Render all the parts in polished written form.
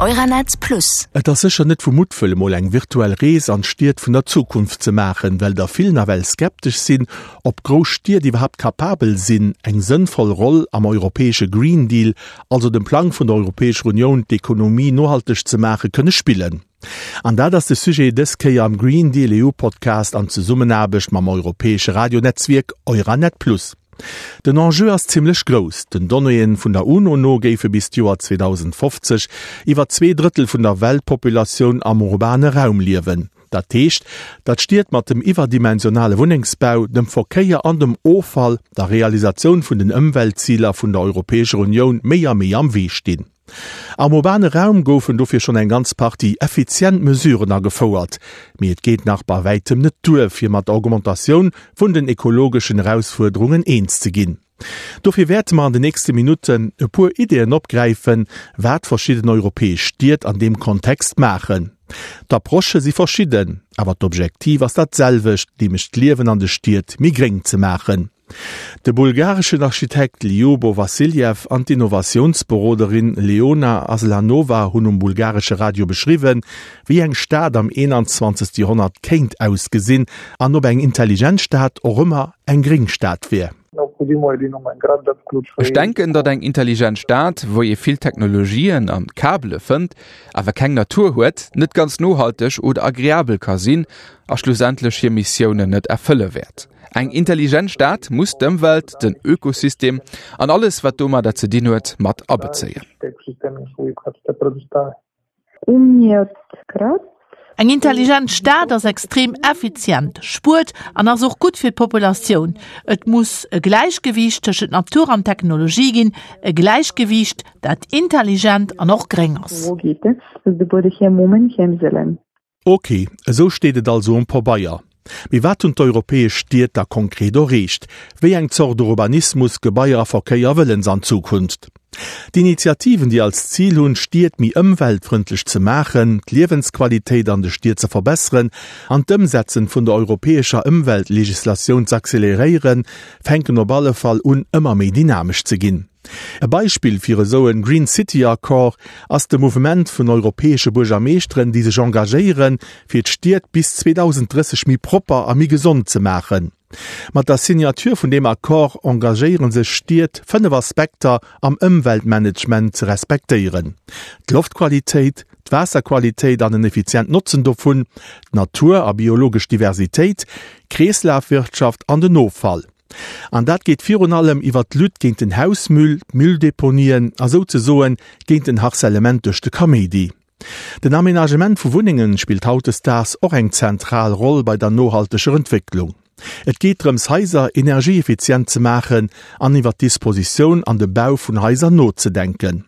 Euranet Plus. Et ass sécher net vu Muttwëll emol eng virtuell Rees an d'Stied vun der Zukunft ze maachen, well der vill nawell skeptesch sinn, ob grouss Stied iwwerhaapt kapabel sinn, eng sënnvoll Roll am europäesche Green Deal, also dem Plang vun der Europäescher Unioun d'Ekonomie nohalteg ze maachen, kënne spillen. An dat ass de Sujet dës Kéier am Green Deal EU Podcast an Zesummenaarbecht mam europäesche Radionetzwierk Euranet Plus. Den Enjeu ass zimmlech grouss. Den Donnéeë vun der UNO no géife bis d'Joer 2050 iwwer 2 Drëttel vun der Weltpopulatioun am urbane Raum liewen. Dat heescht, datt Stied mat dem iwwerdimensionale Wunnengsbau, dem Verkéier an dem Offall der Realisatioun vun den Ëmweltziler vun der Europäescher Unioun méi a méi am Wee stinn. Am urbane Raum goufen dofir schonn eng ganz Partie effizient Mesuren agefouert, mee et geet nach bei wäitem net duer, fir mat der Augmentatioun vun den ekologeschen Erausfuerderungen eens ze ginn. Dofir wäerte mer an den nächste Minutten e puer Ideeën opgräifen, wat verschidden europäesch Stied an deem Kontext maachen. D'Approchë si verschidden, awer d'Objektiv ass dat selwecht, nämlech d'Liewen an de Stied méi gréng ze maachen. De bulgareschen Architekt Ljubo Vassiljev an d'Innovatiounsberoderin Leona Aslanova hunn um bulgaresche Radio beschriwwen, wéi eng Stad am 21. Joerhonnert kéint ausgesinn an ob eng intelligent Stad och ëmmer eng gréng Stad wier. Ech denken, datt eng intelligent Stad, wou ee vill Technologien an Kabele fënnt, awer keng Natur huet, net ganz nohalteg oder agreabel ka sinn a schlussendlech hir Missiounen net erfëlle wäert. Eng intelligent Stad muss d'Ëmwelt, den Ökosystem an alles wat domadder ze dinn huet, mat abezéien. Eng intelligent Stad ass extrem effizient, spuert an ass och gutt fir d'Populatioun. Et muss e Gläichgewiicht tëschent Natur an Technologie ginn, e Gläichgewiicht, dat intelligent an och gréng ass. Ok, esou steet et also um Pabeier. Mee wat hunn d'europäesch Stied da konkret erreecht? Wéi eng Zort Urbanismus, Gebaier a Verkéier wëllen se an Zukunft? D'Initiativen, déi als Zil hunn, d'Stied méi ëmweltfrëndlech ze maachen, d'Liewensqualitéit an de Stied ze verbesseren an d'Ëmsetzen vun der europäescher Ëmweltlegislatioun z'acceleréieren, fänken op alle Fall un ëmmer méi dynamesch ze ginn. E Beispill fir esou en Green City Accord ass de Mouvement vun europäesche Buergermeeschteren, déi sech engagéieren, fir d'Stied bis 2030 méi propper a méi gesond ze maachen. Mat der Signature vun deem Accord engagéiere sech Stied, 5 Aspekter am Ëmweltmanagement ze respektéieren, d'Loftqualitéit, d'Waasserqualitéit an en effizient Notzen dovun, d'Natur a biologesch Diversitéit, d'Kreeslafwirtschaft an den Offall. An dat geet virun allem iwwer d'Lutte géint den Hausmüll, d'Mülldeponien a souzesoen géint den Harcèlement duerch de Kaméidi. Den Aménagement vu Wunnengen spillt hautdesdaags och eng zentral Roll bei der nohalteger Entwécklung. Et geet drëms Haiser energieeffizient ze maachen an iwwer d'Dispositioun an de Bau vun Haiser nozedenken.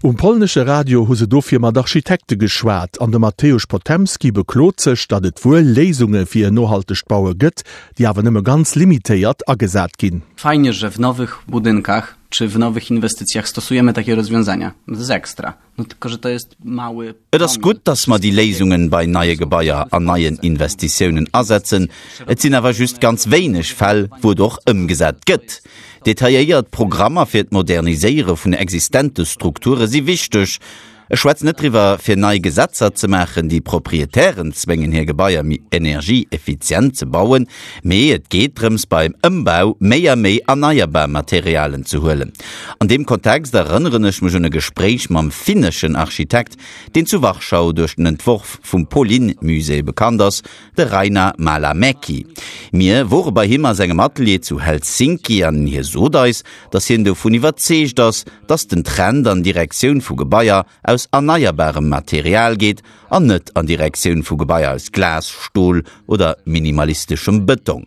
Um polnesche Radio hu se dofir mat Architekte geschwat an de Mateusz Potemski beklot sech, datt et wuel Léisunge fir en nohaltegt Baue gëtt, déi awer nëmme ganz limitéiert agesat ginn. Fajnie, że w nowych budynkach czy w nowych inwestycjach stosujemy takie rozwiązania. To jest ekstra. No tylko, że to jest mały. Et ass gutt, datt mer déi Léisungen bei neie Gebaier an neien Investitiounen asetzen. Et sinn awer just ganz wéineg Fäll, wou et och ëmgesat gëtt. Detailléiert Programmer fir d'Moderniséiere vun existente Strukture si wichteg. Ech schwätzen net driwwer, fir nei Gesetzer ze maachen, déi Proprietären zwéngen, hir Gebaier méi energieeffizient ze bauen, mee et geet drëms, beim Ëmbau méi a méi erneierbar Materialen ze huelen. An deem Kontext erënneren ech mech un e Gespréich mam finneschen Architekt, deen zu Warschau duerch den Entworf vum Polin-Musée bekannt ass, De Rainer Malamäki. Mir wore bei him a sengem Atelier zu Helsinki an hie sot eis, datt hien dovun iwwerzeegt ass, datt den Trend an Direktioun vu Gebaier aus erneierbarem Material geet an net an Direktioun vu Gebaier aus Glas, Stol oder minimalisteschem Bëtong.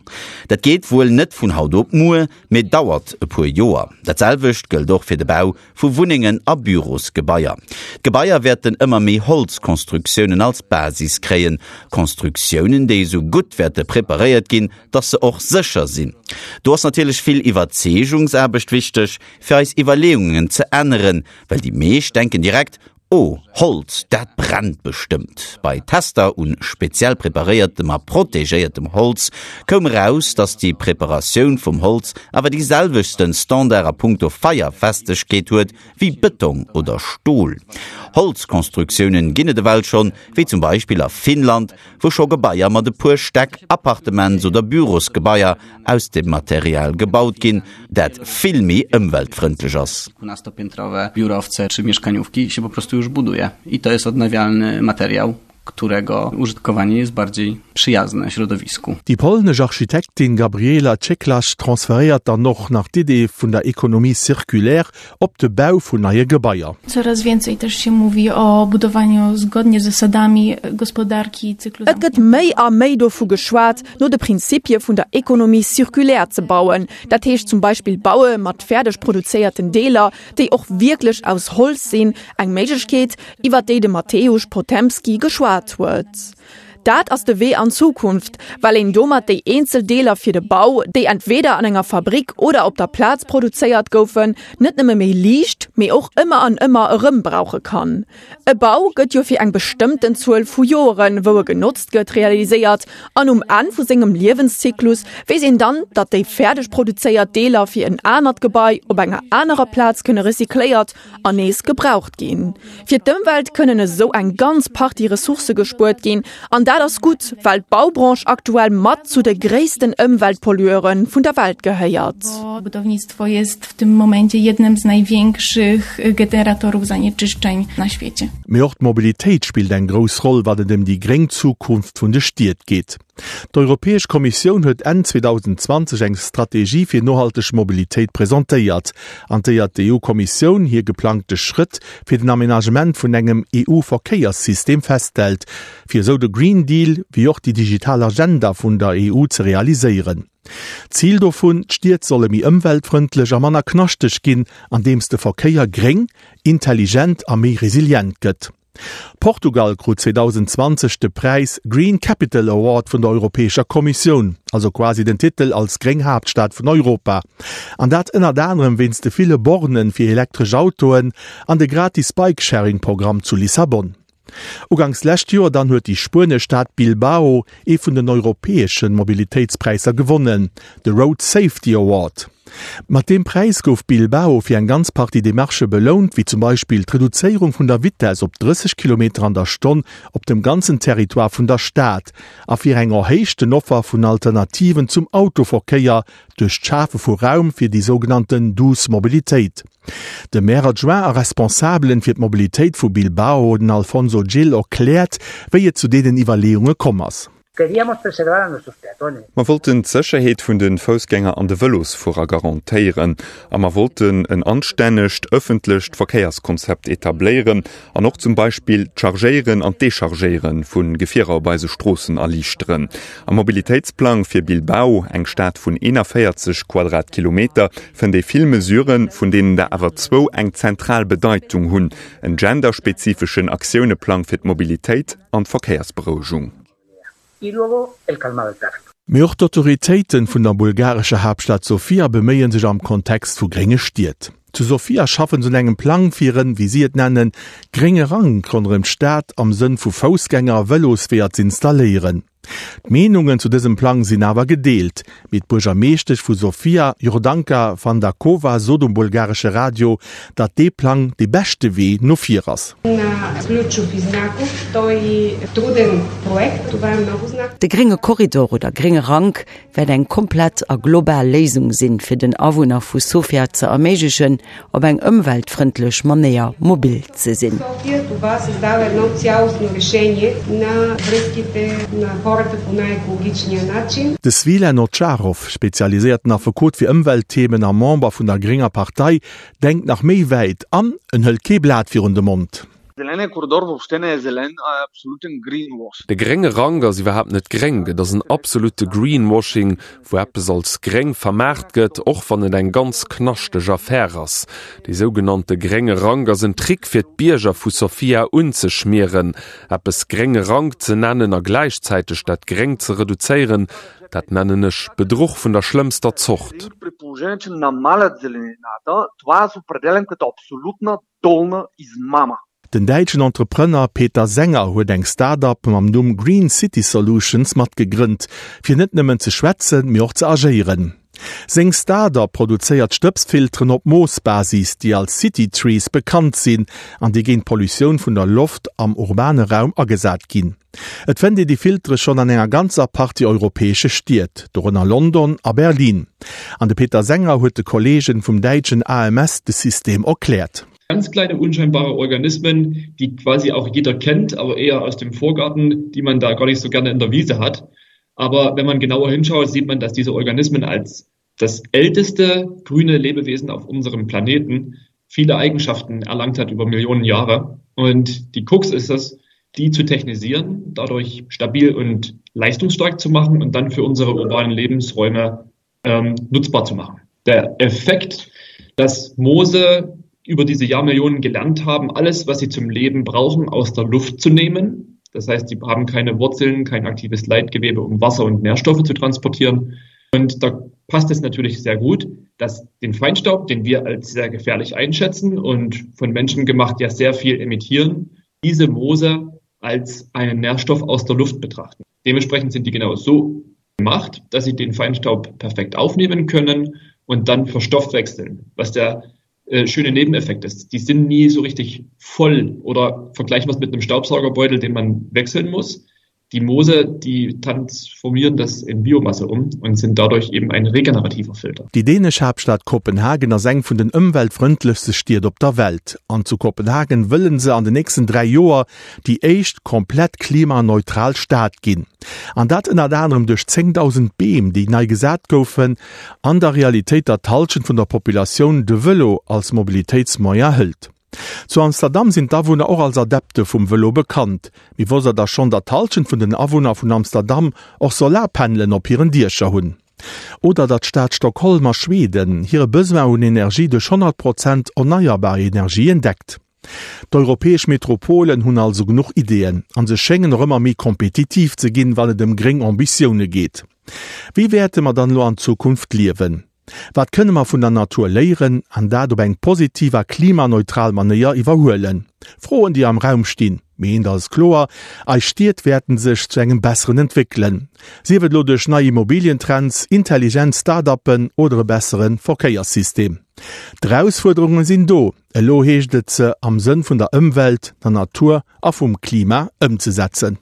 Dat geet wuel net vun haut op muer, mee dauert e puer Joer. Dat selwecht gëllt och fir de Bau vu Wunnengen a Bürosgebaier. D'Gebaier wäerten ëmmer méi Holzkonstruktiounen als Basis kréien, Konstruktiounen, déi esou gutt wäerte preparéiert ginn, dass se och sécher sinn. Do ass natierlech vill Iwwerzeegungsaarbecht wichteg, fir eis Iwwerleeungen ze änneren, well déi meescht denken direkt, Oh, Holz, dat brennt bestëmmt! Bei Tester un speziell preparéiertem a protegéiertem Holz koum eraus, dass déi Preparatioun vum Holz awer déi selwechtsten Standard a punkto Feierfestegkeet huet wéi Bëtong oder Stol. Holzkonstruktiounen ginn et ewell schonn, wéi zum Beispill a Finnland, wou scho Gebaier mat e puer Stäck Appartements oder Bürosgebaier aus dem Material gebaut ginn, dat vill méi ëmweltfrëndlech ass. Dwunastopiętrowe biurowce czy mieszkaniówki się po prostu już buduje i to jest odnawialny materiał, którego użytkowanie jest bardziej przyjazne środowisku. Déi polnesch Architektin Gabriela Cieklacz transferéiert dann och nach d'Idee vun der Économie circulaire op de Bau vun neie Gebaier. Coraz więcej też się mówi o budowaniu zgodnie z zasadami gospodarki cyklu Et gëtt méi a méi dovu geschwat, no de Prinzipie vun der Économie circulaire ze bauen, dat heescht zum Beispill Baue mat fäerdeg produzéierten Deeler, déi och wierklech aus Holz sinn, eng Méiglechkeet, iwwer déi de Mateusz Potemski geschwat huet. Dat ass de Wee an d'Zukunft, well een domat déi eenzel Deeler fir de Bau, déi entweeder an enger Fabrick oder op der Plaz produzéiert goufen, net nëmme méi liicht, mee och ëmmer an ëmmer erëm brauche kann. E Bau gëtt jo fir eng bestëmmten Zuel vu Joeren, wou e genotzt gëtt, realiséiert an um Enn vu sengem Liewenszyklus weess een dann, datt déi fäerdeg produzéiert Deeler fir en anert Gebai op enger anerer Plaz kënne recycléiert an nees gebraucht ginn. Fir d'Ëmwelt kënnen esou eng ganz Partie Ressourcë gespuert ginn an dat ass gutt, well d'Baubranche aktuell mat zu de gréissten Ëmweltpollueure vun der Welt gehéiert. Budownictwo jest w tym momencie jednym z największych generatorów zanieczyszczeń na świecie. Mee och d'Mobilitéit spillt eng grouss Roll, wann et ëm déi gréng Zukunft vun de Stied geet. D'Europäesch Kommissioun huet Enn 2020 eng Strategie fir nohalteg Mobilitéit presentéiert, an déier d'EU-Kommissioun hir geplangte Schrëtt fir den Amenagement vun engem EU-Verkéierssystem festhält, fir esou de Green Deal wéi och déi digital Agenda vun der EU ze realiséieren. Zil dovun, D'Stied solle méi ëmweltfrëndlech a manner knaschteg ginn, andeems de Verkéier gréng, intelligent a méi resilient gëtt. Portugal krut 2020 de Präis Green Capital Award vun der Europäescher Kommissioun, also quasi den Titel als gréng Haaptstad vun Europa. An dat ënnert anerem wéinst de ville Bornen fir elektresch Autoen an de gratis Bike-Sharing-Programm zu Lissabon. Uganks lescht Joer dann huet déi spuenesch Stad Bilbao ee vun den europäesche Mobilitéitspräisser gewonnen, de Road Safety Award. Mat deem Präis gouf Bilbao fir eng ganz Partie Demarchë belount, wéi zum Beispill d'Reduzéierung vun der Vitess op 30 Kilometer an der Stonn op dem ganzen Territoire vun der Stad a fir eng erhéichten Offer vun Alternativen zum Autoverkéier duerch d'Schafe vu Raum fir déi sougenannten douce Mobilitéit. De Maire adjoint a Responsabelen fir d'Mobilitéit vu Bilbao, den Alfonso Gil, erkläert, wéi et zu deenen Iwwerleeunge komm ass. Mer wollten d'Sécherheet vun de Foussgänger an de Vëlosfuerer garantéieren a mer wollten en anstännegt ëffentlecht Verkéierskonzept etabléieren an och zum Beispill d'Chargéieren an d'Dechargéiere vu Gefierer op eise Stroossen erliichteren. Am Mobilitéitsplang fir Bilbao, eng Stad vun 41 Quadratkilometer, fënnt ee vill Mesuren, vun deenen der awer zwou eng zentral Bedeitung hunn, en genderspezifeschen Aktiounepplang fir d'Mobilitéit an d'Verkéiersberouegung. Mee och d'Autoritéiten vun der bulgarescher Haaptstad Sofia beméie sech am Kontext vu grénge Stied. Zu Sofia schaffen se un engem Plang fir en, wéi si et nennen, grénge Rank ronderëm d'Stad am Sënn vu Foussgänger a Vëlosweeër z'installéieren. D'Meenungen zu dësem Plang sinn awer gedeelt, mee d'Buergermeeschtesch vu Sofia, Jordanka Fandakova, sot um bulgaresche Radio, datt dee Plang dee beschte Wee no vir ass. De grénge Korridor oder grénge Rank wäert eng komplett a global Léisung sinn, fir den Awunner vu Sofia ze erméiglechen, op eng ëmweltfrëndlech Manéier mobil ze sinn. De Svilen Ovtcharov, spezialiséierten Affekot fir Ëmweltthemen a Member vun der grénger Partei, denkt nach méi wäit an en hëlt kee Blat virun de Mond. De grénge Rank ass iwwerhaapt net gréng, et ass en absolutte Greenwashing, wou eppes als gréng vermaart gëtt, och wann et eng ganz knaschteg Affär ass. Dee sougenannte grénge Rank ass en Trick fir d'Bierger vu Sofia unzeschmieren. Eppes grénge Rank ze nennen a gläichzäiteg dat Gréng ze reduzéieren, dat nennen ech Bedruch vun der schlëmmster Zort. Den däitschen Entrepreneur Peter Sänger huet eng Start-up mam Numm Green City Solutions mat gegrënnt, fir net nëmmen ze schwätzen, mee och ze agéieren. Seng Start-up produzéiert Stëbsfilteren op Moosbasis, déi als City Trees bekannt sinn an déi géint d'Pollutioun vun der Loft am urbane Raum agesat ginn. Et fënnt ee déi Filtere schonn an enger ganzer Partie europäesche Stied, dorënner London a Berlin. An de Peter Sänger huet de Kolleegen vum däitschen AMS de System erkläert. Ganz kleine unscheinbare Organismen, die quasi auch jeder kennt, aber eher aus dem Vorgarten, die man da gar nicht so gerne in der Wiese hat. Aber wenn man genauer hinschaut, sieht man, dass diese Organismen als das älteste grüne Lebewesen auf unserem Planeten viele Eigenschaften erlangt hat über Millionen Jahre. Und die Krux ist es, die zu technisieren, dadurch stabil und leistungsstark zu machen und dann für unsere urbanen Lebensräume ähm, nutzbar zu machen. Der Effekt, dass Moose über diese Jahrmillionen gelernt haben, alles, was sie zum Leben brauchen, aus der Luft zu nehmen. Das heißt, sie haben keine Wurzeln, kein aktives Leitgewebe, um Wasser und Nährstoffe zu transportieren. Und da passt es natürlich sehr gut, dass den Feinstaub, den wir als sehr gefährlich einschätzen und von Menschen gemacht ja sehr viel emittieren, diese Moose als einen Nährstoff aus der Luft betrachten. Dementsprechend sind die genau so gemacht, dass sie den Feinstaub perfekt aufnehmen können und dann verstoffwechseln, was der äh, schöne Nebeneffekt ist. Die sind nie so richtig voll oder vergleichen wir es mit einem Staubsaugerbeutel, den man wechseln muss. Die Moose, die transformieren das in Biomasse um und sind dadurch eben ein regenerativer Filter. Déi dänesch Haaptstad Kopenhagen ass eng vun den ëmweltfrëndlechste Stied op der Welt. An zu Kopenhagen wëllen se an den nächsten 3 Joer déi éischt komplett klimaneutral Stad ginn. An dat ënnert anerem duerch 10.000 Beem, déi nei gesat goufen. An der Realitéit, datt d'Hallschent vun der Populatioun de Vëlo als Mobilitéitsmoyen hëlt. Zu Amsterdam sinn d'Awunner och als Adepte vum Vëlo bekannt. Mee wosst der da schonn, datt d'Hallschent vun den Awunner vun Amsterdam och Solarpanelen op hiren Diecher hunn? Oder datt d'Stad Stockholm a Schweden hire Besoin un Energie duerch 100 Prozent erneierbar Energien deckt? D'europäesch Metropolen hunn also genuch Ideeën an se schéngen och ëmmer méi kompetitiv ze ginn, wann et ëm gréng Ambitioune geet. Wéi wäerte mer dann elo an Zukunft liewen? Wat kënne mer vun der Natur léieren an dat op eng positiv a klimaneutral Manéier iwwerhuelen? Froen, déi am Raum stinn. Mee eent ass kloer, Eis Stied wäerten sech zu engem Besseren entwéckelen. Sief et elo duerch nei Immobilientrends, intelligent Start-uppen oder e bessere Verkéierssystem. D'Erausfuerderunge sinn do, elo heescht et se am Sënn vun der Ëmwelt, der Natur a vum Klima ëmzesetzen.